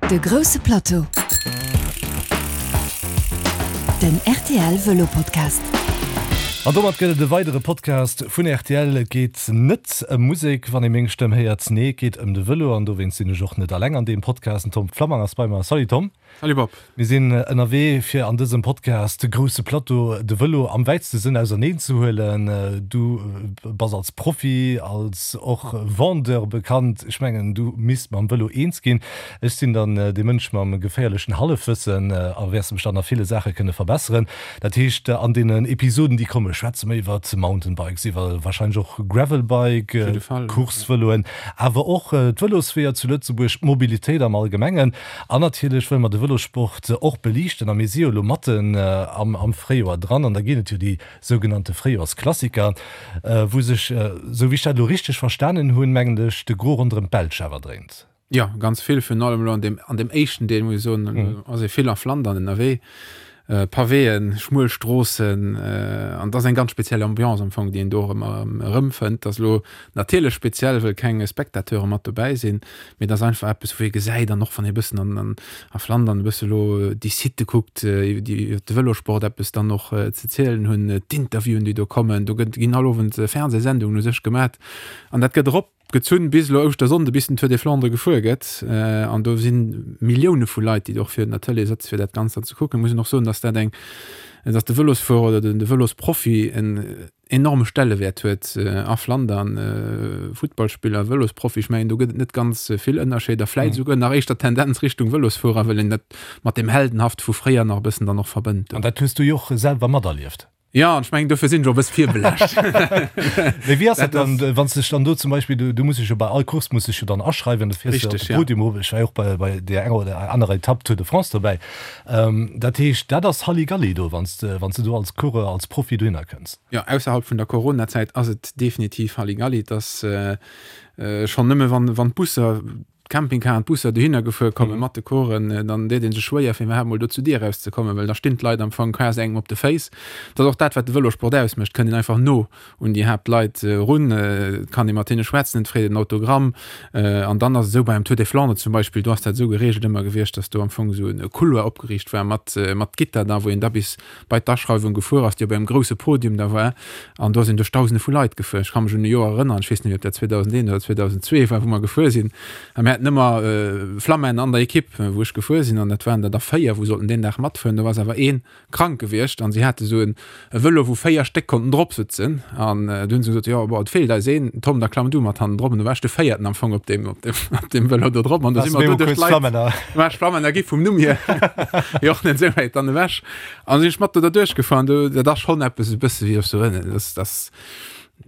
De grousse Plateau, den rtl Vëlo Podcast. An domat gëtt et e weidere Podcast vun rtl. Et geet net ëm Musek, wann ee meng Stëmm héiert. Nee, et geet ëm de Vëlo an dowéinst sinn ech och net alleng an deem Podcast. Den Tom Flammang ass bei mer. Salut Tom. Salut Bob. Mir sinn ënnerwee fir an dësem Podcast De grousse Plateau, de Vëlo am wäitste Sënn auserneen ze huelen. Du bass als Profi, als och Vendeur bekannt. Ech mengen du misst mam Vëlo eens ginn. Ech sinn dann dee Mënsch mam geféierlechen Hallefwëssen a wäers mech dann a ville Saache kënne verbesseren. Dat heescht an deenen Episoden déi komme schwätze mer iwwer Mountainbikes, iwwer warscheinlech och Gravelbike, Coursevëloen, awer och d'Vëlosweeër zu Lëtzebuerg, d'Mobilitéit am Allgemengen. An natierlech wëlle mer de Vëlossport och beliichten a mir si jo elo matten am Fréijoer dran an da ginn et jo déi sougenannte Fréijoersklassiker, wou sech, esou wéi ech dat elo richteg verstanen hunn, mengen ech, de Gros ronderëm d'Belsch awer dréint. Jo, ganz vill, virun allem elo an deem, an deem éischten Deel, muss ech soen, ass ee vill a Flandern ënnerwee. Pavéen, schmuel Stroossen, an et ass eng ganz speziell Ambiance am Fong, déi een do och ëmmer erëmfënnt. Et ass elo natierlech speziell, wëll keng Spectateure mat dobäi sinn, mee et ass einfach eppes, wou ee gesäit, an och wann ee e bëssen an a Flandern e bësse elo déi Sitte kuckt, déi iwwer de Vëlosport eppes dann och ze zielen hunn, d'Interviewen, déi do kommen, do gëtt, ginn all Owend Fernsehsendungen u sech gemat an dat gëtt erop. Gezunn bis elo Ouschtersonnde, bis den Tour des Flandres gefuer gëtt. An do si Millioune vu Leit, déi och virun der Tëlee sëtze fir dat Ganzt dann ze kucken. Muss een och soen, datt dat eng, datt de Vëlosfuerer oder de Vëlosprofi en enorme Stellewäert huet a Flandern. Futtballspiller, Vëlosprofi, ech mengen do gëtt et net ganz vill Ënnerscheeder, vläit esouguer nach éischter Tendenz Richtung Vëlosfuerer, well een dat mat deem Heldenhaft vu fréier nach e bëssen dann och verbënnt. An dat hues du jo och selwer materlieft. Jo, an ech mengen, dofir sinn ech och e bësse virbelaascht. Mee wéi ass dat dann, wann s de dech dann do zum Beispill, du, du muss dech jo bei all Course muss dech jo dann aschreiwen, du fiers jo op de Podium erof, ech war jo och bei, bei deer enger oder anerer Etapp Tour de France dobäi. Dat heescht, dat ass Halligalli do, wann s de, wann s de do als Coureur, als Profi dohinner kënns. Jo, ausserhalb vun der Coronazäit ass et definitiv Halligalli. Et ass schonn nëmme wann, wann d'Busser, D'Campingcaren, d'Busser dohinner gefuer komme mat de Coursen, dann deet ee sech schwéier fir iwwerhaapt mol do zu Dier erauszekommen, well da stinn d'Leit am Fong quasi engem op de Féiss. Dat ass och dat, wat de Vëlosport ausmécht, et kënnt een einfach no un déi Haaptleit erun, et kann ee mat hinne schwätzen, et freet een Autogramm. An dann ass et esou, bei engem Tour des Flandres zum Beispill, do ass dat esou gereegelt ëmmer gewiescht, datt do am Fong esou e Couloir opgeriicht war mat mat Gitter da, wou een da bis bei d'Aschreiwung gefuer ass, déi op engem grousse Podium da war, an do sinn duerch Dausende vu Leit gefuer. Ech ka mech un e Joer erënneren, ech weess net méi, ob dat 2001 oder 2002 war, wou mer gefuer sinn, a mir haten ëmmer Flammen an der Ekipp, wou ech gefuer sinn, an dat waren der da 4, wou sollten deen Dag matfueren. Do ass awer ee krank gewiescht an si hate sou e Vëlo, wou 4 Stéck konnten drop sëtzen, an du hunn se gesot, jo, bon, et feelt eis een, Tom, da klamm du mat hannen drop. An du war ech de Véierten am Fong op deem, op deem, op deem Vëlo do drop, an do si mer do duerch d'Leit. War ech Flammen, da gi vum Numm hier jo och net esou wäit dann ewech. An sinn ech mat do derduerch gefuer an do, dat ass schonn eppes e bësse wéi op sou en, dat ass,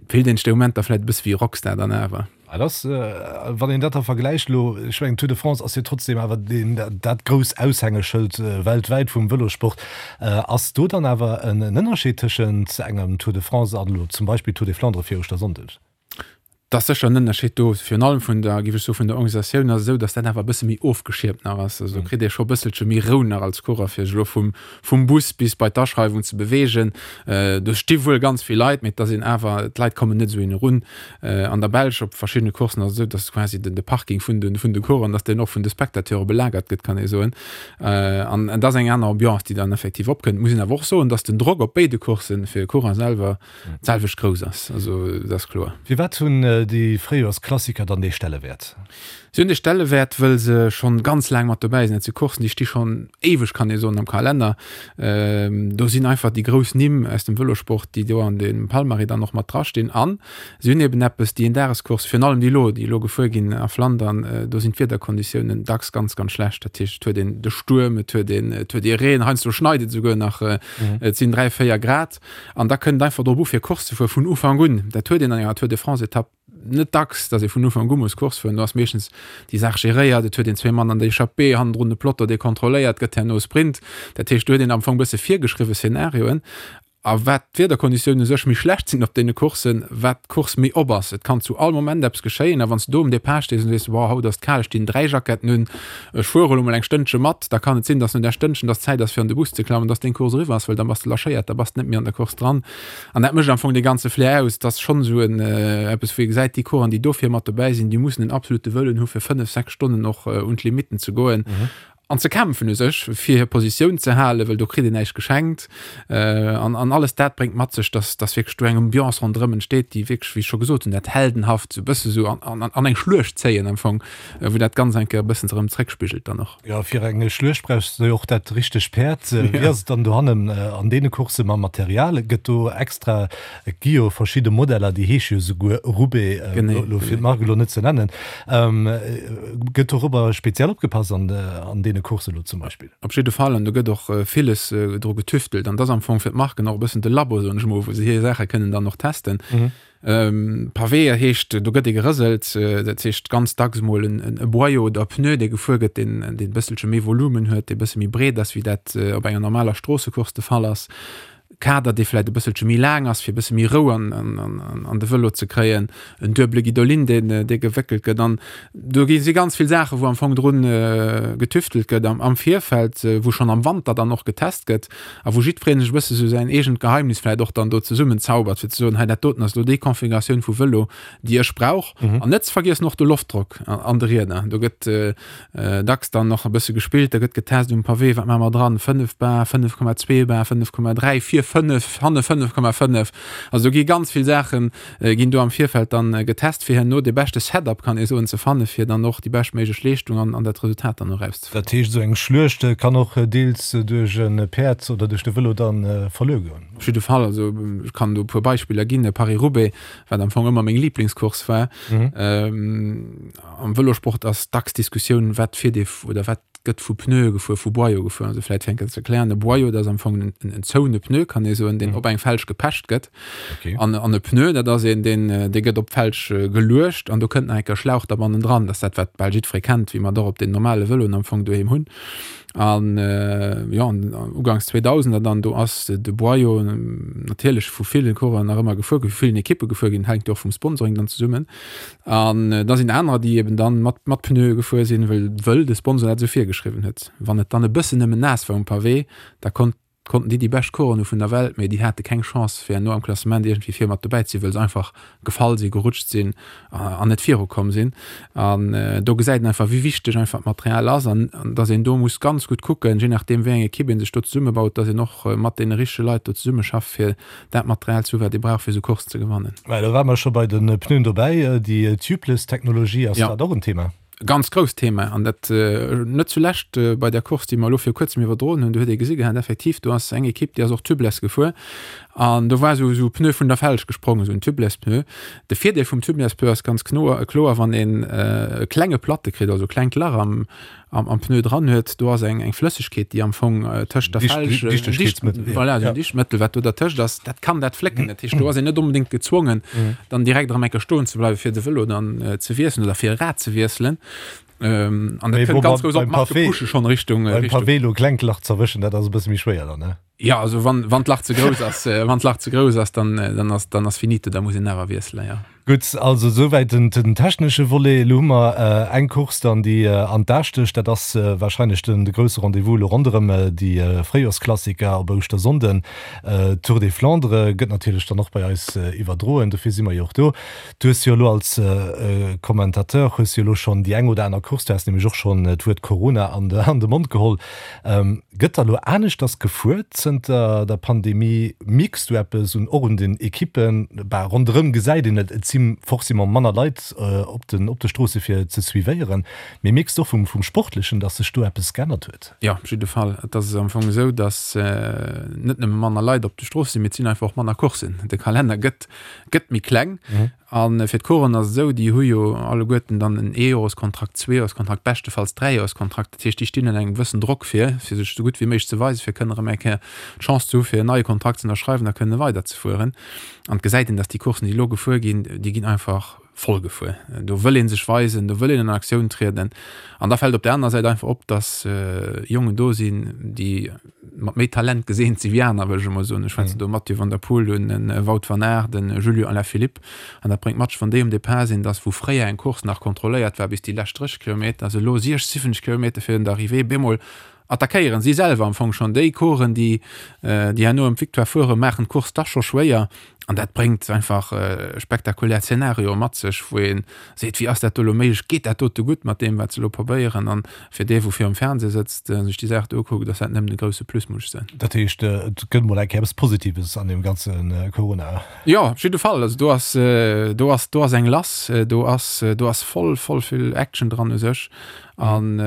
fillt een sech dee Moment da vläit e bësse wéi e Rockstar dann awer. Dat ass, wann een dat da vergläicht elo, ech mengen d'Tour de France ass jo trotzdem awer deen, dat grouss Aushängeschëld weltwäit vum Vëlossport. Ass do dann awer en Ënnerscheed tëschent engem Tour de France an elo zum Beispill Tour des Flandres fir Ouschtersonndeg? Et ass sécher en Ënnerscheed do, virun allem vun der, géif ech soen, vun der Organisatioun ass et esou, datt dat awer e bësse méi ofgeschiermt nach ass. Also do kritt ee scho e bësselche méi Rou nach als Coureur, fir sech elo vum, vum Bus bis bei d'Aschreiwung ze beweegen. Do sti wuel ganz vill Leit, mee et ass een awer, d'Leit kommen net esou een erun. An der Belsch op verschiddene Courssen ass et esou, datt quasi den, de Parking vun de, vun de Coureuren, datt deen och vun de Spectateure belagert gëtt, kann ee soen. An et ass eng aner Ambiance, déi dann effektiv opkënnt. Muss een awer och soen, datt den Drock op béide Courssen fir e Coureur selwer, d'selwecht grouss ass, also dat ass kloer. Firwat hunn déi Fréijoersklassiker dann dee Stellewäert? Si hunn dee Stellewäert, wëll se schonn ganz laang mat dobäi sinn. Dat si Courssen, déi sti schonn éiweg, kann ee soen, am Kalenner. Do sinn einfach déi grouss Nimm aus dem Vëlosport, déi do an dem Palmarès dann och mat drastinn. An si hunn eben eppes, déi Eendagescourse, virun allem déi elo, déi elo gefuer ginn a Flandern, do sinn d'Wiederkonditiounen dacks ganz, ganz schlecht. Dat heescht, et huet een de Stuerm, et huet een, et huet ee Reen, heiansdo schneit et esouguer nach, et sinn 3, 4 Grad. An da kënnt et einfach drop u fir Course ze fuere vun Ufank un. Dat huet een an enger Tour de France Etapp net dacks, datt ee vun Ufank u muss Course fueren. Do ass meeschtens déi Saach geréiert, et huet een zwee Mann an der Echappée, hannendrun de Peloton dee kontrolléiert gëtt, herno Sprint. Dat heescht do huet een am Fong e bësse virgeschriwwe Szenarioen. A wat d'Wiederkonditiounen u sech méi schlecht sinn op deene Courssen, wat d'Course méi op ass. Et kann zu all Moment eppes geschéien a wann s de do um Depart stees an sees, Wow, haut ass et kal, ech dinn 3 Jacketten un, ech fuere elo mol eng Stënnche mat, da kann et sinn, dass no där Stënnchen, dass Zäit ass fir an de Bus ze klammen, dass deng Course eriwwer ass, well da bass de lâchéiert, da bass de net méi an der Course dran. An dat mécht am Fong dee ganze Flair aus. Et ass schonn esou en eppes, wou ee gesäit, déi Coureuren, déi dofir mat dobäi sinn, déi mussen en absolute Wëllen hu fir 5, 6 Stonnen och un d'Limitten ze goen. An ze kämpfen u sech, fir hir Positioun ze halen, well do kritt een näischt geschenkt. An, an alles dat bréngt mat sech, dass, dass wierklech do eng Ambiance ronderëm entsteet, déi wierklech, wéi ech scho gesot hunn, dat Heldenhaft esou e bësse sou an, an, an eng Schluecht zéien am Fong, wou dat Ganzt eng Kéier e bëssen erëm zréckspigelt dann och. Jo, fir eng Schluecht brauchs de jo och dat richtegt Päerd. Wéi ass et dann dohannen an deene Coursse mam Material? Gëtt do extra, et gi jo verschidde Modeller, déi heesche jo souguer Roubaix, elo fir d'Mark elo net ze nennen. Gëtt dorobber speziell opgepasst an an deene Coursen elo zum Beispill? Op jidde Fall, an do gëtt och villes dru getüftelt. An et ass am Fong fir d'Marken och e bëssen de Labo, soen ech mol, wou se hir Saache kënnen dann och testen. Pavé heescht, do gëtt ee gerëselt, dat heescht ganz dacks mol en Boyau oder e Pneu, dee gefuer gëtt, deen e bësselche méi Volumen huet, dee e bësse méi breet ass, wéi dat op enger normaler Stroossecourse de Fall ass. Kader, dee vläit e bësselche méi laang ass, fir e bësse méi Rou an, an, an, an de Vëlo ze kréien, en duebele Guidolin, deen, dee gewéckelt gëtt. An do gi si ganz vill Saachen, wou am Fong drun getüftelt gëtt am, am Virfeld, wou schonn am Wanter dann och getest gëtt a wou jiddweree sech e bësse sou säin eegent Geheimnis vläit och dann do zesummenzaubert, fir ze soen, hei dat doten ass elo déi Configuratioun vu Vëlo, déi ech brauch. An net ze vergiessen och de Loftdrock an de Rieder. Do gëtt Dacks dann och e bësse gespillt, da gëtt getest um Pavé, wat maache mer dran, 5 Bar, 5,2 Bar, 5,3, vir 5, hanne 5,5. Also do gi ganz vill Saache ginn do am Virfeld dann getest, fir herno dee beschte Setup, kann ee soen, ze fanne fir dann och déi beschtméiglech Leeschtung an an dat Resultat dann och erauszefannen. Dat heescht, esou eng Schluecht kann och deels duerch e Päerd oder duerch de Vëlo dann verluer goen? Op jidde Fall. Also ech kann do e puer Beispiller ginn, Paris-Roubaix, wat am Fong ëmmer meng Liblingscourse war. Am Vëlosport ass dacks d'Diskussioun, wat fiert ee oder wat gëtt vu Pneue gefuer, vu Boyau gefuer. Also vläit fir eng Kéier ze erklären, e Boyau, dat ass am Fong en, en zoune Pneu, kann ee soen, deen op eng Felg gepecht gëtt. Okay. An, an e Pneu, dat ass een, deen, dee gëtt op d'Felg geluecht an do kënnt nach eng Kéier Schlauch da bannendran. Dat ass dat, wat bal jiddweree kennt, wéi mer et och op den normale Vëloen am Fong doheem hunn. An, jo, an uganks 2000er dann, do ass de Boyau natierlech vu villen Coureuren nach ëmmer gefuer ginn, vu villen Ekippe gefuer ginn, hänkt jo och vum Sponsoring dann zesummen. An da sinn anerer, déi eben dann mat, mat Pneue gefuer sinn, wëll, wëll de Sponsor dat esou virgeschriwwen huet. Wann et dann e bëssen nëmmen naass war um Pavé, da konnt, konnten déi déi bescht Coureuren hu vun der Welt, mee déi hate keng Chance, fir herno am Klassement iergendwéi vir mat dobäi ze sinn, wëll se einfach gefall sinn, gerutscht sinn an net virukomm sinn. An do gesäit een einfach, wéi wichteg einfach d'Material ass an, an dass een do muss ganz gutt kucken, je nachdeem wéi eng Ekipp ee sech do zesummebaut, dass een och mat deene richtege Leit do zesummeschafft, fir dat Material ze hu wat ee brauch fir esou Coursen ze gewannen. Well do ware mer scho bei de Pneuen dobäi, déi Tubeless-Technologie, ass dat och en Thema? Ganz grousst Thema an dat net zulescht bei der Course déi mer elo viru kuerzem iwwerdroen hunn. Do huet ee gesi gehat effektiv, do ass eng Ekipp déi ass och Tubeless gefuer an do war esou esou e Pneu vun der Felg gesprongen, esou en Tubeless-Pneu. De Virdeel vum Tubeless-Pneu ass ganz kloer, wann een e klenge Platte kritt, also e klengt Lach am am, am Pneu dran huet, do ass eng, eng Flëssegkeet, déi am Fong äh, tëscht der Felg, äh, Dichtegkeetsmëttel, voilà, ja. Dichtmëttel, wat do dertëscht ass, dat kann dat flécken. Dat heescht, do ass een net onbedéngt gezwongen, mhm. dann direkt erëm eng Kéier stoen ze bleiwen, fir de Vëlo dann äh, ze wiesselen oder fir e Rad ze wiesselen. Ähm, an dat kënnt ganz grouss op d'Marke pushe schon Richtung, äh, Richtung. Beim Pavé lo klengt Lach z'erwëschen, dat ass e bësse méi schwéier dann, ne? Ja, also wann, wann d'Lach ze grouss ass, äh, wann d'Lach ze grouss ass, dann, äh, dann ass, dann ass finito, da muss een awer wiesselen, ja. Gutt, also esouwäit den, den technesche Volet. Elo hu mer äh, eng Course dann, déi äh, an d'A stécht. Dat ass äh, wahrscheinlech den, de grousse Rendez-vous elo ronderëm äh, déi äh, Fréijorsklassiker op Ouschtersonnden. Äh, Tour des Flandres gëtt natierlech dann och bei eis äh, iwwerdroen, dofir si mer jo och do. Du hues jo elo als äh, Commentateur hues jo elo schonn déi eng oder aner Course, du has nämlech och schonn d'Wuert Corona an de, an de Mond geholl, Gëtt da lo aneschters gefuer zënter der Pandemie? Mierks du eppes un och un den Ekippen? Bah, ronderëm gesäit een et, et si forcément manner Leit op den op de Stroosse fir ze suivéieren. Mee mierks du och vum vum Sportlechen, datt sech do eppes geännert huet? Jo, op jidde Fall. Et ass am Fong esou, datt net nëmme manner Leit op de Stroosse sinn, mee et sinn einfach och manner Courssen. De Kalenner gëtt gëtt méi kleng. A fir d'Coursen ass et esou, déi hu jo alleguerten dann en Eejoreskontrakt, Zweejoreskontrakt, beschtefalls Dräijoreskontrakt. Dat heescht, déi stinn ënner engem gewëssen Drock fir, fir sech esou gutt wéi méiglech ze weisen, fir kënnen erëm eng Kéier d'Chance ze hu fir en neie Kontrakt ze ënnerschreiwen a kënne weiderzefueren. An et gesäit een, datt déi Coursen, déi elo gefuer ginn, déi ginn einfach. voll gefuer. Do wëll ee sech weisen, do wëll een an Aktioun trieden. An da fält op der anerer Säit einfach op, datt Jongen do sinn, déi mat méi Talent geseent si wéi aner, wëll ech emol soen. Ech schwätzen do Mathieu van der Poel un, de Wout van Aert, de Julien Alaphilippe. An dat bréngt mat sech, wann déi um Depart sinn, datt wou fréier eng Course nach kontrolléiert war bis déi lescht 30 Kilometer, se elo 60, 70 Kilometer virun der Arrivée bemol attackéieren si selwer am Fong schonn déi Coursen, déi déi herno ëm d'Victoire fueren, maachen d'Course dach scho schwéier. An dat bréngt einfach spektakulär Zenarioe mat sech, wou ee seet, wéi ass dat do elo méiglech, geet dat dote gutt mat deem, wat se elo probéieren? An fir dee, wou virum Fernseh sëtzt, sech déi Saach do ukuckt, ass dat nëmmen e grousse Plus, muss ech soen. Dat heescht, et gëtt mol eng Kéier eppes Positives an deem ganze Corona. Jo, op jidde Fall. Also do ass, do ass, do ass eng lass, do ass, do ass voll, voll vill Action dran u sech. An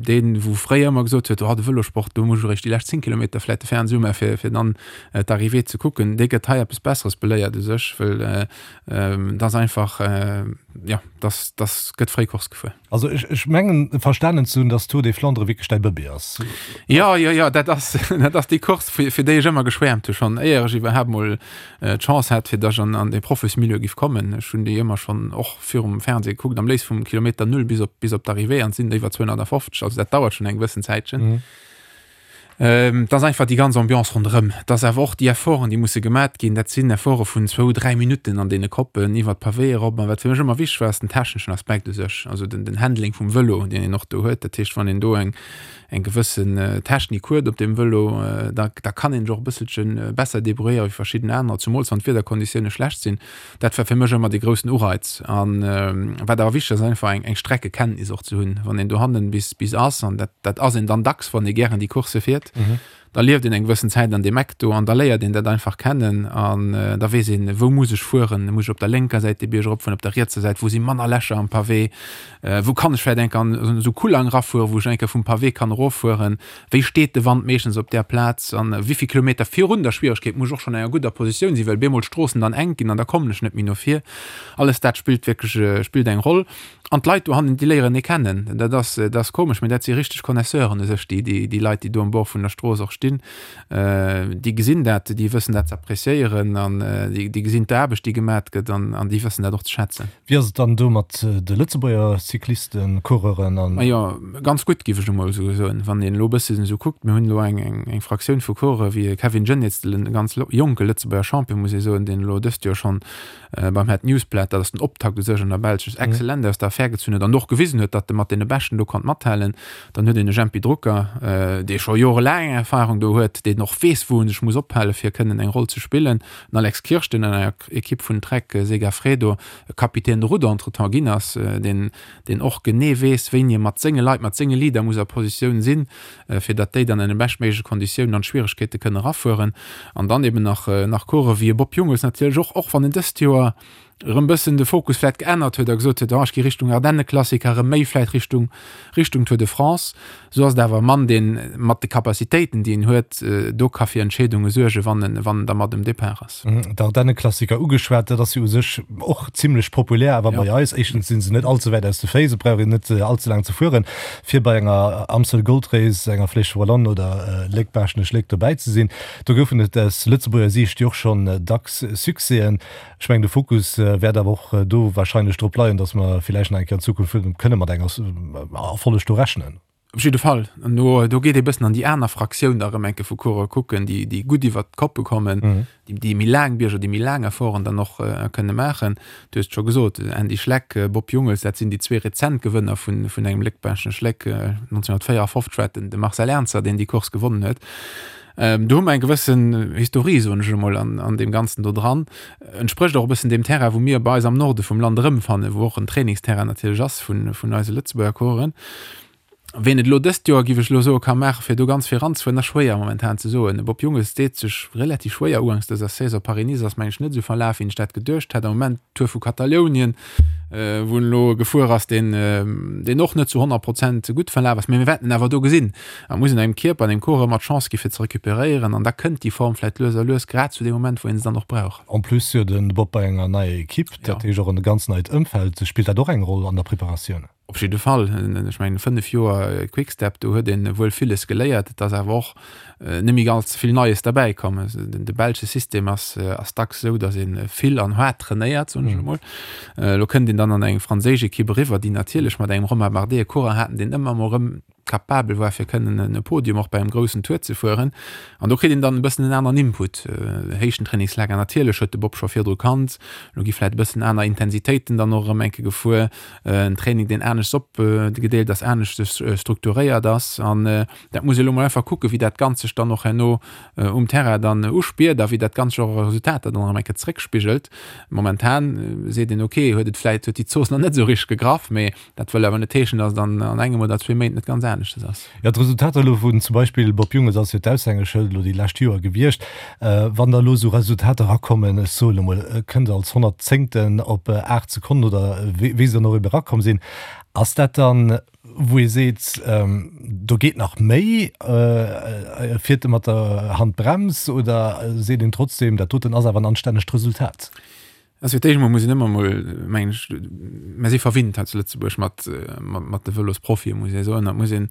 deen, wou fréier ëmmer gesot huet, oh de Vëlosport, do muss ech eréischt déi lescht 10 Kilometer vläicht de Fernseh umaachen, fir, fir dann d'Arrivée ze kucken, dee gëtt hei eppes Besseres beléiert u sech, well et ass einfach, jo, dass, dass gëtt fréi Course gefuer. Also ech, ech mengen verstanen ze hunn, dass d'Tour des Flandres wierklech däi Bëbee ass. Jo, jo, jo, dat ass, dat ass déi Course, fir, fir déi ech ëmmer geschwäermt hu schonn, éier ech iwwerhaapt mol d'Chance hat, fir dass ech an, an dee Profismilieu giff kommen. Ech hunn déi ëmmer schonn och virum Fernseh gekuckt, am léifst vum Kilometer Null bis op, bis op d'Arrivée, an et sinn der iwwer 250, also dat dauert schonn eng gewëssen Zäitchen. Et ass einfach déi ganz Ambiance ronderëm. Et ass awer och déi Efforten, déi musse gemat ginn. Dat sinn Efforte vun zwou, dräi Minutten an deene Koppen iwwer d'Pavéë erop. An wat fir mech ëmmer wichteg war, ass den techneschen Aspekt u sech, also den, den Handling vum Vëlo, deen een och do huet. Dat heescht, wann een do eng, eng gewëssen Technik huet op deem Vëlo, da, da kann een sech och e bësselche besser debrouilléiere wéi verschidden anerer, zumools wann d'Wiederkonditioune schlecht sinn. Dat war fir mech ëmmer dee groussen Ureiz. An wat awer wichteg ass, ass einfach eng, eng Streckekenntnis och ze hunn. Wann een dohannen bis, bis ass, an dat, dat ass een dann dacks, wann ee gären déi Coursse fiert, da lieft een eng gewëssen Zäit an deem Eck do an da léiert een dat einfach kennen an da weess een, wou muss ech fueren, muss ech op der lénker Säit de Bierg eropfueren, op der rietser Säit, wou si manner Lächer am Pavé, wou kann ech vläicht eng Kéier an esou Kullang erafueren, wou ech eng Kéier vum Pavé kann eroffueren, Wéi steet de Wand meeschtens op där Plaz an wéi vill Kilometer virun der Schwieregkeet muss ech och schonn an enger gudder Positioun sinn, well bemol d'Stroossen dann enk ginn an da kommen ech net méi no vir. Alles dat spillt wierklech spillt eng Roll. An d'Leit dohannen, déi léieren ee kennen. Dat ass dat ass komesch, mee dat si richteg Connaisseuren u sech, déi déi déi Leit, déi do um Bord vun der Strooss och stinn. Déi gesinn dat, déi wëssen dat ze appréciéieren an déi déi gesinn d'Aarbecht, déi gemat gëtt an an déi wëssen dat och ze schätzen. Wéi ass et dann do mat de Lëtzebuerger Cyclisten, Coureuren an. Majo, ganz gutt giff ech emol esou soen. Wann een elo e bësschen esou kuckt, mir hunn elo eng eng Fraktioun vu Coureuren wéi e Kevin Geniets, e ganz jonke Lëtzebuerger Champion muss ee soen, deen elo dëst Joer schonn beim Het Nieuwsblad, dat ass den Optakt u sech an der Belsch, sech exzellent aus der Affär gezunn huet an och gewisen huet, datt e mat deene Beschten do konnt mathalen. Dann huet een e Jempy Drucker, dee scho jorelaang Erfahrung do huet, deen och weess wou en sech muss ophale fir kënnen eng Roll ze spillen. Den Alex Kirsch, deen an enger Ekipp vun Trek Segafredo Capitaine de route entretemps ginn ass, deen, deen och genee weess, wéini e mat senge Leit, mat senge Leader muss a Positioun sinn, fir datt déi dann an de beschtméigleche Konditiounen an d'Schwieregkeete kënne erafueren. An dann eben nach, nach Coureuren wéi e Bob Jungels natierlech och, och wann en dëst Joer erëm bëssen de Fokus vläit geännert huet a gesot huet, oh ech gi Richtung Ardennenklassiker, erëm méi vläit Richtung, Richtung Tour de France, esou ass et awer e Mann, deen mat de Capacitéiten, déi en huet, do ka fir Entscheedunge suergen, wann en, wann en da mat um Depart ass. D'Ardennenklassiker ugeschwat, dat ass jo u sech och zimlech populär awer bei eis. Éischtens si se net all ze wäit aus de Féiss, et brauch een net all ze laang ze fueren, fir bei enger Amstel Gold Race, enger Flèche Wallonne oder Léck-Baaschtnech-Léck dobäi ze sinn. Do goufen et aus Lëtzebuerger Siicht jo och schonn dacks Succèsen. Ech mengen, de Fokus wäert awer och do wahrscheinlech drop leien, dass mer villäicht nach eng Kéier an Zukunft kënne mat engem Erfolleg do rechnen. Op jidde Fall. An do, do geet ee bëssen an déi aner Fraktioun da erëm eng Kéier vu Coureuren kucken, déi, déi gutt iwwert d'Koppe kommen, déi, déi méi laang Bierger, déi méi laang Efforten dann och kënne maachen. Du hues et scho gesot, Andy Schleck, Bob Jungels, dat sinn déi zwee rezent Gewënner vun, vun engem Léck-Baaschtnech-Léck. 1954 war et den, de Marcel Ernzer, deen déi Course gewonnen huet. Do hu mer eng gewëssen Historie, soen ech emol, an, an deem Ganzen do dran. Entsprécht och e bëssen deem Terrain, wou mir bei eis am Norde vum Land erëmfannen, wou och en Trainingsterrain natierlech ass vun, vun eise Lëtzebuerger Coureuren. Ween et elo dëst Joer, géif ech elo soen, ka maachen, fir do ganz vill eranzefueren, ass schwéier momentan ze soen. De Bob Jungels deet sech relativ schwéier uganks dëser Saison. Paris-Nice ass, meng ech, net esou verlaf, wéi ech dat geduecht hat. Am Moment d'Tour vu Katalounien, wou en elo gefuer ass, deen, deen och net zu 100 Prozent gutt verlaf ass. Mee mir wäerten en awer do gesinn. Et muss een engem Kierper an engem Corps ëmmer d'Chance gi fir ze recuperéieren an da kënnt déi Form vläit lues a lues, grad zu deem Moment, wou een se dann och brauch. En plus jo de Bob bei enger neier Equipe, dat heescht och en ganz neit Ëmfeld. Spillt dat och eng Roll an der Preparatioun? Op jidde Fall. Ech mengen, 5 Joer Quick-Step, do huet ee wuel villes geléiert. Et ass awer och net méi ganz vill Neies derbäi komm. De belsche System ass dacks esou, datt ee vill an haart trainéiert, soen ech emol. Elo kënnt een dann an eng franséisch Ekipp eriwwer, déi natierlech mat engem Romain Bardet e Coureur haten, deen ëmmer emol erëm capabel war fir kënnen e Podium och bei engem groussen Tour ze fueren. An do kritt een dann e bëssen en aneren Input. Héichtentrainingslager natierlech huet de Bob scho virdru kannt. Elo gi vläit e bëssen aner Intensitéiten dann och erëm eng Kéier gefuer. En Training deen aneschts opgedeelt ass, aneschters strukturéiert ass. An dat muss ee elo mol einfach kucken, wéi dat Ganzt sech dann och herno um Terrain dann uspiert a wéi dat Ganzt sech och a Resultater dann erëm eng Kéier zeréckspigelt. Momentan seet een, ok, huet et vläit, huet déi Zooss nach net esou richteg gegraff, mee Dat wëll awer net heeschen, datt et an an engem oder zwee Méint net ganz aneschtes ass. Jo, d'Resultater elo vun zum Beispill Bob Jungels ass jo d'Aushängeschëld elo déi lescht Joer gewiescht. Wann da elo esou Resultater erakommen, ech soen elo mol, e kënnt als Honnertzéngten op 8 Sekonnen oder wéi se dann och ebe erakomm sinn, ass dat dann, wou ee seet, do geet nach méi, fiert e mat der Handbrems oder seet een trotzdem, dat doten ass awer en anstännegt Resultat? Also fir d'éischt emol muss een ëmmer emol, mengen ech, mer si verwinnt hei zu Lëtzebuerg mat, mat de Vëlosprofien, muss ee soen. Dat muss een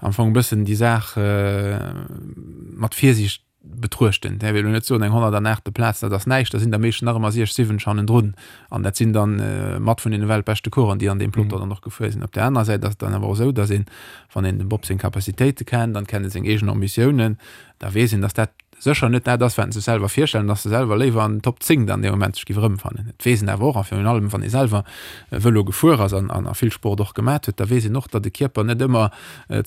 am Fong e bëssen déi Saach mat Virsiicht betruechten. Däerf ee elo net soen, eng 108. Plaz, dat ass näischt, da sinn der meeschtens nach ëmmer siech, siwwensch hannendrun. An dat sinn dann mat vun deene weltbeschte Coureuren, déi an deem Peloton dann och gefuer sinn. Op där anerer Säit ass et dann awer och esou, datt een, wann een dem Bob seng Capacitéite kennt an kennt e seng eegen Ambitiounen, da weess een, datt dat sécher net dat ass, wat en sech selwer virstellt, an dass e selwer léiwer an den Top 10 dann dee Moment sech géif erëmfannen. Et weess een awer och, a virun allem wann ee selwer Vëlo gefuer ass an a vill Sport och gemat huet, da weess een och, datt de Kierper net ëmmer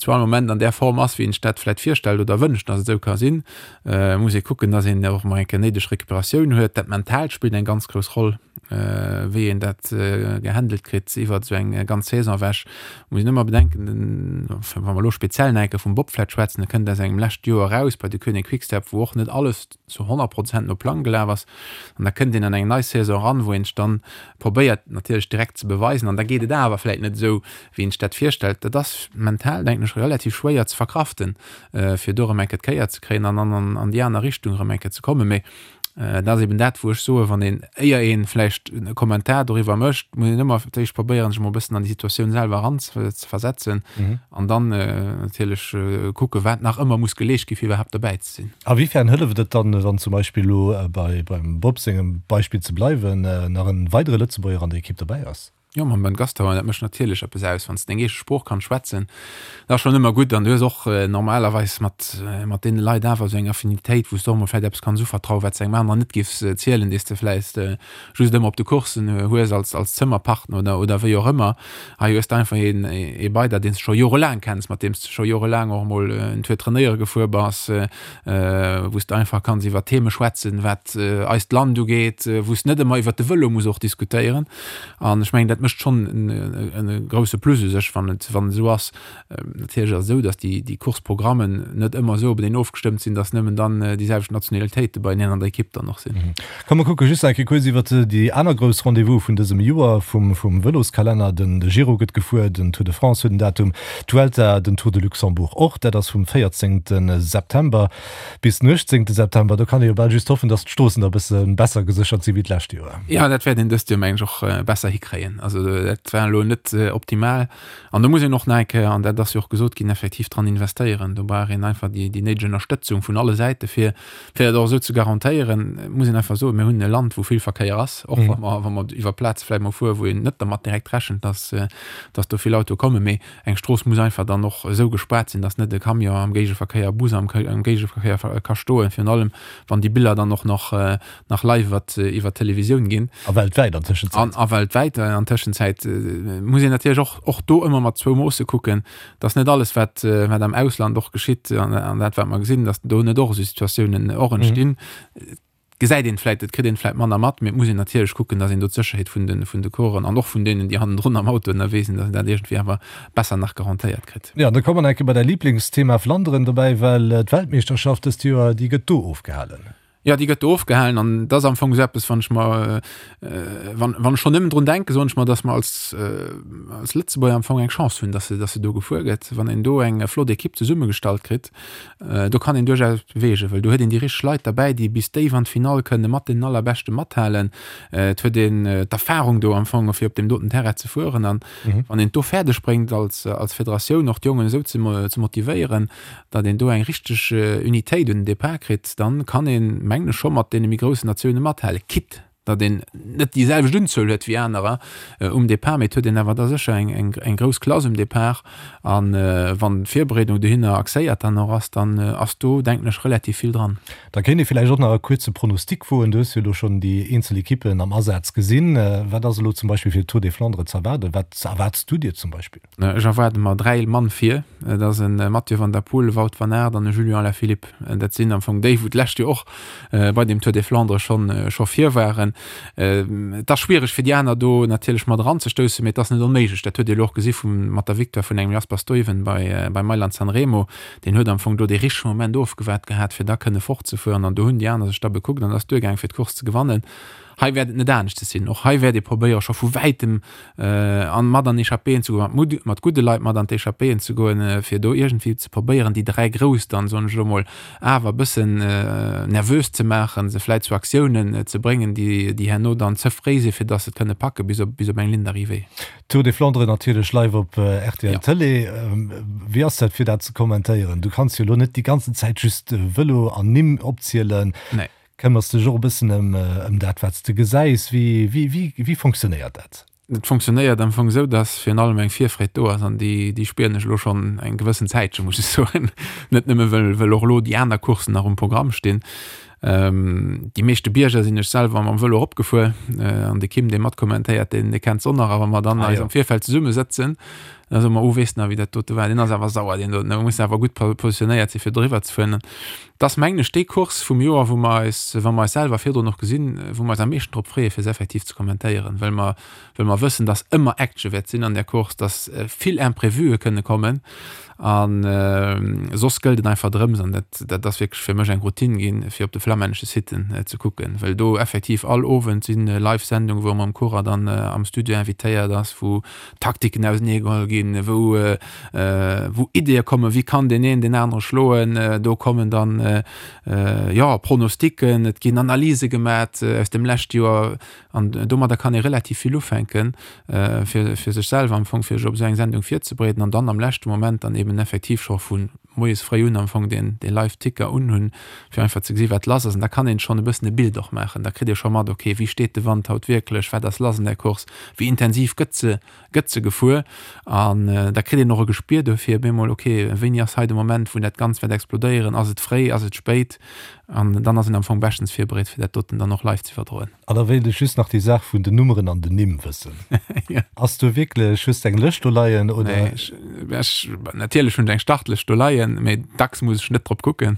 zu all Moment an där Form ass, wéi een sech dat vläicht virstellt oder wënscht, datt et esou ka sinn. Et muss ee kucken, datt een och emol eng Kéier néideg Recuperatioun huet. Dat Mentaalt spillt eng ganz grouss Roll. Wéi een dat gehandelt kritt iwwert esou eng ganz Saison ewech, muss een ëmmer bedenken, wa mer elo speziell nach eng Kéier vum Bob vläicht schwätzen, e kënnt aus engem lescht Joer eraus bei de Koenig Quick-Step, wou och net alles zu 100 Prozent no Plang gelaf ass. An da kënnt een an eng nei Saison eran, wou een sech dann probéiert natierlech direkt ze beweisen an da geet et awer vläicht net esou, wéi een sech dat virstellt. Dat ass mental, denken ech, relativ schwéier ze verkraften, fir do erëm eng Kéier d'Kéier ze kréien an dann an déi aner Richtung erëm eng Kéier ze kommen. Mee Dat ass eben dat, wou ech soen, wann een, éier ee vläicht e Kommentar doriwwer mécht, muss een ëmmer fir d'éischt probéieren, sech emol e bëssen an déi Situatioun selwer eranzeversetzen an dann natierlech kucken, wat nach ëmmer muss geleescht ginn, fir iwwerhaapt derbäi ze sinn. A wéifern hëlleft et dann, wann zum Beispill elo beim Bob sengem Beispill ze bleiwen, nach e weidere Lëtzebuerger an der Ekipp derbäi ass? Jo, mam Ben Gastauer, dat mécht natierlech eppes aus, wann s de deng eege Sprooch kanns schwätzen. Dat ass schonn ëmmer gutt an du hues och normalerweis mat, mat deene Leit awer esou eng Affinitéit, wou s de och emol vläicht eppes kanns uvertrauen, wat s de engem aneren net giffs zielen, dee s de vläicht just ëmmer op de Coursen hues als, als Zëmmerpartner oder, oder wéi och ëmmer. Hei hues de einfach een, ee bei der, deen s de scho jorelaang kenns, mat deem s de scho jorelaang och emol en Tour trainéiere gefuer bass, wou s de einfach kanns iwwer Theme schwätzen, wat eist Land ugeet, wou s de net ëmmer iwwer de Vëlo muss och diskutéieren. An ech mengen, dat mécht schonn e grouse Plus u sech, wann et wann et esou ass. Natierlech ass et esou, datt déi déi Course-Programmen net ëmmer esou openeen ofgestëmmt sinn, datt nëmmen dann déi selwecht Nationalitéite beieneen an der Ekipp dann och sinn. Komm mer kucke just nach eng Kéier kuerz iwwert déi aner grouss Rendez-vous vun dësem Joer vum vum Vëloskalenner. Den Giro gëtt gefuer, den Tour de France huet en Datum, d'Vuelta, den Tour de Luxembourg och. Dat ass vum 14 September. Bis den 18 September, do kann ee jo bal just hoffen, datt d'Stroossen da bësse besser geséchert si wéi d'lescht Joer. Jo, dat wäert een dëst Joer, mengen ech, och besser hikréien. Also dat war elo net optimal. An do muss een och nach eng Kéier, an dat ass jo och gesot ginn, effektiv dran investéieren. Do brauch een einfach déi néideg Ënnerstëtzung vun alle Säite fir, fir dat och esou ze garantéieren. Et muss een einfach soen, mir hunn e Land, wou vill Verkéier ass, och wa mer, wa mer iwwer Plaze vläicht mol fueren, wou een net dermat direkt rechent, datt, datt do vill Autoe kommen. Mee Eng Strooss muss einfach dann och esou gespaart sinn, dass net e Camion am Géigeverkéier, e Bus am Géigeverkéier ka stoen, virun allem wann déi Biller dann och nach nach live iwwer iwwer d'Televisioun ginn. A weltwäit an Tëschenzäit. An a weltwäit an Tëschenzäit muss een natierlech och och do ëmmer mat zwou Moosse kucken, dass net alles wat wat am Ausland och geschitt an an dat wat mer gesinn, dass do net och esou Situatiounen och entstinn. Gesäit een vläit, et kritt een vläit manner mat, mee et muss een natierlech kucken, dass een do d'Sécherheet vun de, vun de Coureuren an och vun deenen, déi hannendrun am Auto ënnerwee sinn, dass een dat iergendwéi awer besser nach garantéiert kritt. Jo, an da komme mer nach eng Kéier bei däi Liblingsthema Flanderen dobäi, well d'Weltmeeschterschaft dëst Joer, déi gëtt do ofgehalen. Jo, déi gëtt do ofgehalen an dat ass am Fong esou eppes, wann ech mer, wann, wann ech schonn nëmmen drun denken, soen ech mer, datt mer als, als Lëtzebuerger am Fong eng Chance hunn, datt se, datt se do gefuer gëtt. Wann een do eng flott Ekipp zesummegestallt kritt, do kann een duerchaus beweegen, well do huet een déi richteg Leit derbäi, déi bis déif an d'Finall kënne mat deenen Allerbeschte mathalen. Et huet een d'Erfarung do am Fong, fir op deem doten Terrain ze fueren an wann een et do fäerdeg bréngt als, als Federatioun och d'Jongen esou ze, ze motivéieren, datt een do eng richteg Unitéit un den Depart kritt, dann kann een, mengen ech, scho mat deene méi groussen Natioune mathalen, quitte datt een net déi selwecht Unzuel huet wéi anerer um Depart, mee et huet een awer da sécher eng grouss Klass um Depart. A wann d'Virbereedung dohinner axéiert dann och ass, dann ass do, denken ech, relativ vill dran. Da kéint ee villäicht och nach e kuerze Pronostic woen. Du hues jo elo schonn déi eenzel Ekippen am Asaz gesinn. Wat ass elo zum Beispill fir de Tour des Flandres z'erwaarden? Wat erwaarts du dir zum Beispill? Ech erwaarde mer 3 Mann vir. Et ass e Mathieu van der Poel, e Wout van Aert an e Julian Alaphilippe. Dat sinn am Fong déi, wou d'lescht Joer och bei dem Tour des Flandres schonn scho vir waren. Et ass schwiereg fir déi aner do natierlech mat eranzestoussen, mee et ass net onméiglech. Dat huet Dir elo och gesi vu mat der Victoire vun engem Jasper Stuyven bei bei Mailand San Remo. Deen huet am Fong do dee richtege Moment ofgewaart gehat, fir da kënne fortzefueren an do hunn déi aner sech da bekuckt an et ass duergaang fir d'Course ze gewannen. Hei wäert et net aneschters sinn. Och hei wäert ee probéiere scho vu wäitem an mat an Echappéen ze goen, mat mat gudde Leit mat an d'Echappéen ze goen, fir do iergendwéi ze probéieren, déi 3 Grouss dann, soen ech elo mol, awer e bëssen nervös ze maachen, se vläit zu Aktiounen ze bréngen, déi déi herno dann ze fréi sinn, fir datt se et kënne packe bis op bis op eng Ligne d'arrivée. Tour des Flandres natierlech live op rtl Tëlee. Wéi ass dat fir dat ze kommentéieren? Du kanns jo elo net déi ganzen Zäit just Vëlo an Nimm opzielen. Nee. Këmmers dech och e bëssen ëm dat, wat s de gesäis? Wéi, wéi, wéi, wéi fonctionnéiert dat? Et fonctionnéiert am Fong esou, dass virun allem eng Virfreed do ass an déi, déi spieren ech elo schonn eng gewëssen Zäitche, muss ech soen. Net nëmme well, well och elo déi aner Courssen nach um Programm stinn. Déi meeschte Bierger sinn ech selwer mam Vëlo eropgefuer an de Kim, dee matkommentéiert, deen, dee kennt se och nach. A wa mer dann eis am Virfeld zesummesëtzen, da soe mer, Oh, weess nach, wéi dat dote war? Deen ass awer sauer, deen doten. Da muss de awer gutt positionéiert sinn, fir doriwwer ze fueren. Et ass, mengen ech, déi Course vum Joer, wou mer eis, wa mer eis selwer virdrun och gesinn, wou mer eis am meeschten drop freeë fir se effektiv ze kommentéieren, well mer, well mer wëssen, dass ëmmer Action wäert sinn an där Course, dass vill Imprévuë kënne kommen. A soss gëllt et einfach drëms, an dat, dat ass wierklech fir mech eng Routine ginn, fir op de flammännesche Siten ze kucken, well do effektiv all Owend si Live-Sendungen, wou e mam Coureur dann am Studio invitéiert ass, wou Taktiken ausenee geholl ginn, wou wou Ideeë kommen, wéi kann deen een deen anere schloen. Do kommen dann jo Pronosticken, et ginn Analyse gemat aus dem leschte Joer an domadder kann ee relativ vill ufänken, fir fir sech selwer am Fong fir sech op esou eng Sendung virzebereeden an dann am leschte Moment dann eben effektiv scho vu moies fréi un am Fong deen dee Live-Ticker unhunn, fir einfach ze gesi wat lass ass. An da kann een schonn e bëssen e Bild och maachen. Da kritt ee scho mat, okay, wéi steet de Wand haut wierklech, wat ass lass an där Course, wéi intensiv gëtt se gëtt se gefuer. An da kritt een och e Gespier dofir op eemol, okay, wéini ass hei de Moment, wou dat Ganzt wäert explodéieren, ass et fréi, ass et spéit? An dann ass een am Fong beschtens virbereet, fir dat doten dann och live ze iwwerdroen. An da wéilt ech just nach déi Saach vun den Nummeren an den Nimm wëssen. Ass do wierklech, hues de eng Lëscht do leien oder? Nee, ech, ech, natierlech hunn ech eng Startlëscht do leien, mee dacks muss ech net drop kucken.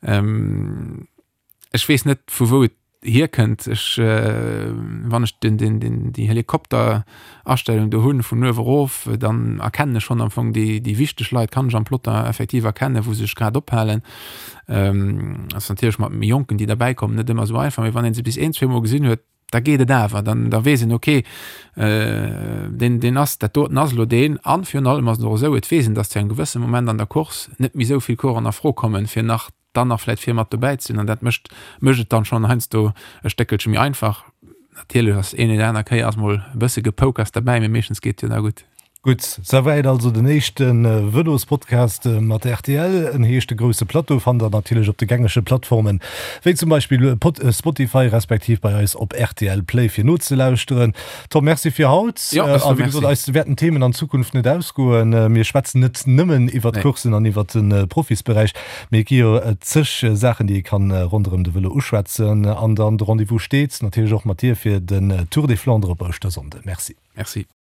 Ech weess net, vu wou et hierkënnt. Ech, wann ech den, den, den, déi Helikopterastellung do hunn, vun uewe erof, dann erkennen ech schonn am Fong déi, déi wichteg Leit, kann ech am Plotter effektiv erkennen, wou se sech grad ophalen. Ass natierlech mat méi Jonken, déi derbäi kommen, net ëmmer esou einfach, mee wann ee se bis een, zweemol gesinn huet, da geet et awer, dann da weess een, okay, deen, deen ass, dat doten ass elo deen. An virun allem ass et och esou, et weess een, datt zu engem gewësse Moment an der Course net méi esou vill Coureuren a Fro kommen, fir nach dann nach vläit vir mat dobäi ze sinn. An dat mécht mécht et dann schonn heiansdo e Stéckelche méi einfach. Natierlech ass een oder aner Kéier ass mol e bësse Gepoukers derbäi, mee meeschtens geet et jo da gutt. Gutt, souwäit also den éischte Vëlospodcast mat rtl. En heescht De grousse Plateau, fannt der natierlech op de gängege Plattformen, wéi zum Beispill Spotify, respektiv bei eis op rtl Play fir nozelauschteren. Tom, Merci fir haut. Jo, ech soe A wéi gesot, Merci. eis wäerten d'Themen an Zukunft net ausgoen. Mir schwätzen net nëmmen iwwert Nee. d'Courssen an iwwert de Profisberäich, mee et gi jo zeg Saachen, déi ee kann ronderëm de Vëlo uschwätzen. An dann de Rendez-vous steet natierlech och mat dir fir den Tour des Flandres op Ouschtersonnde. Merci. Merci.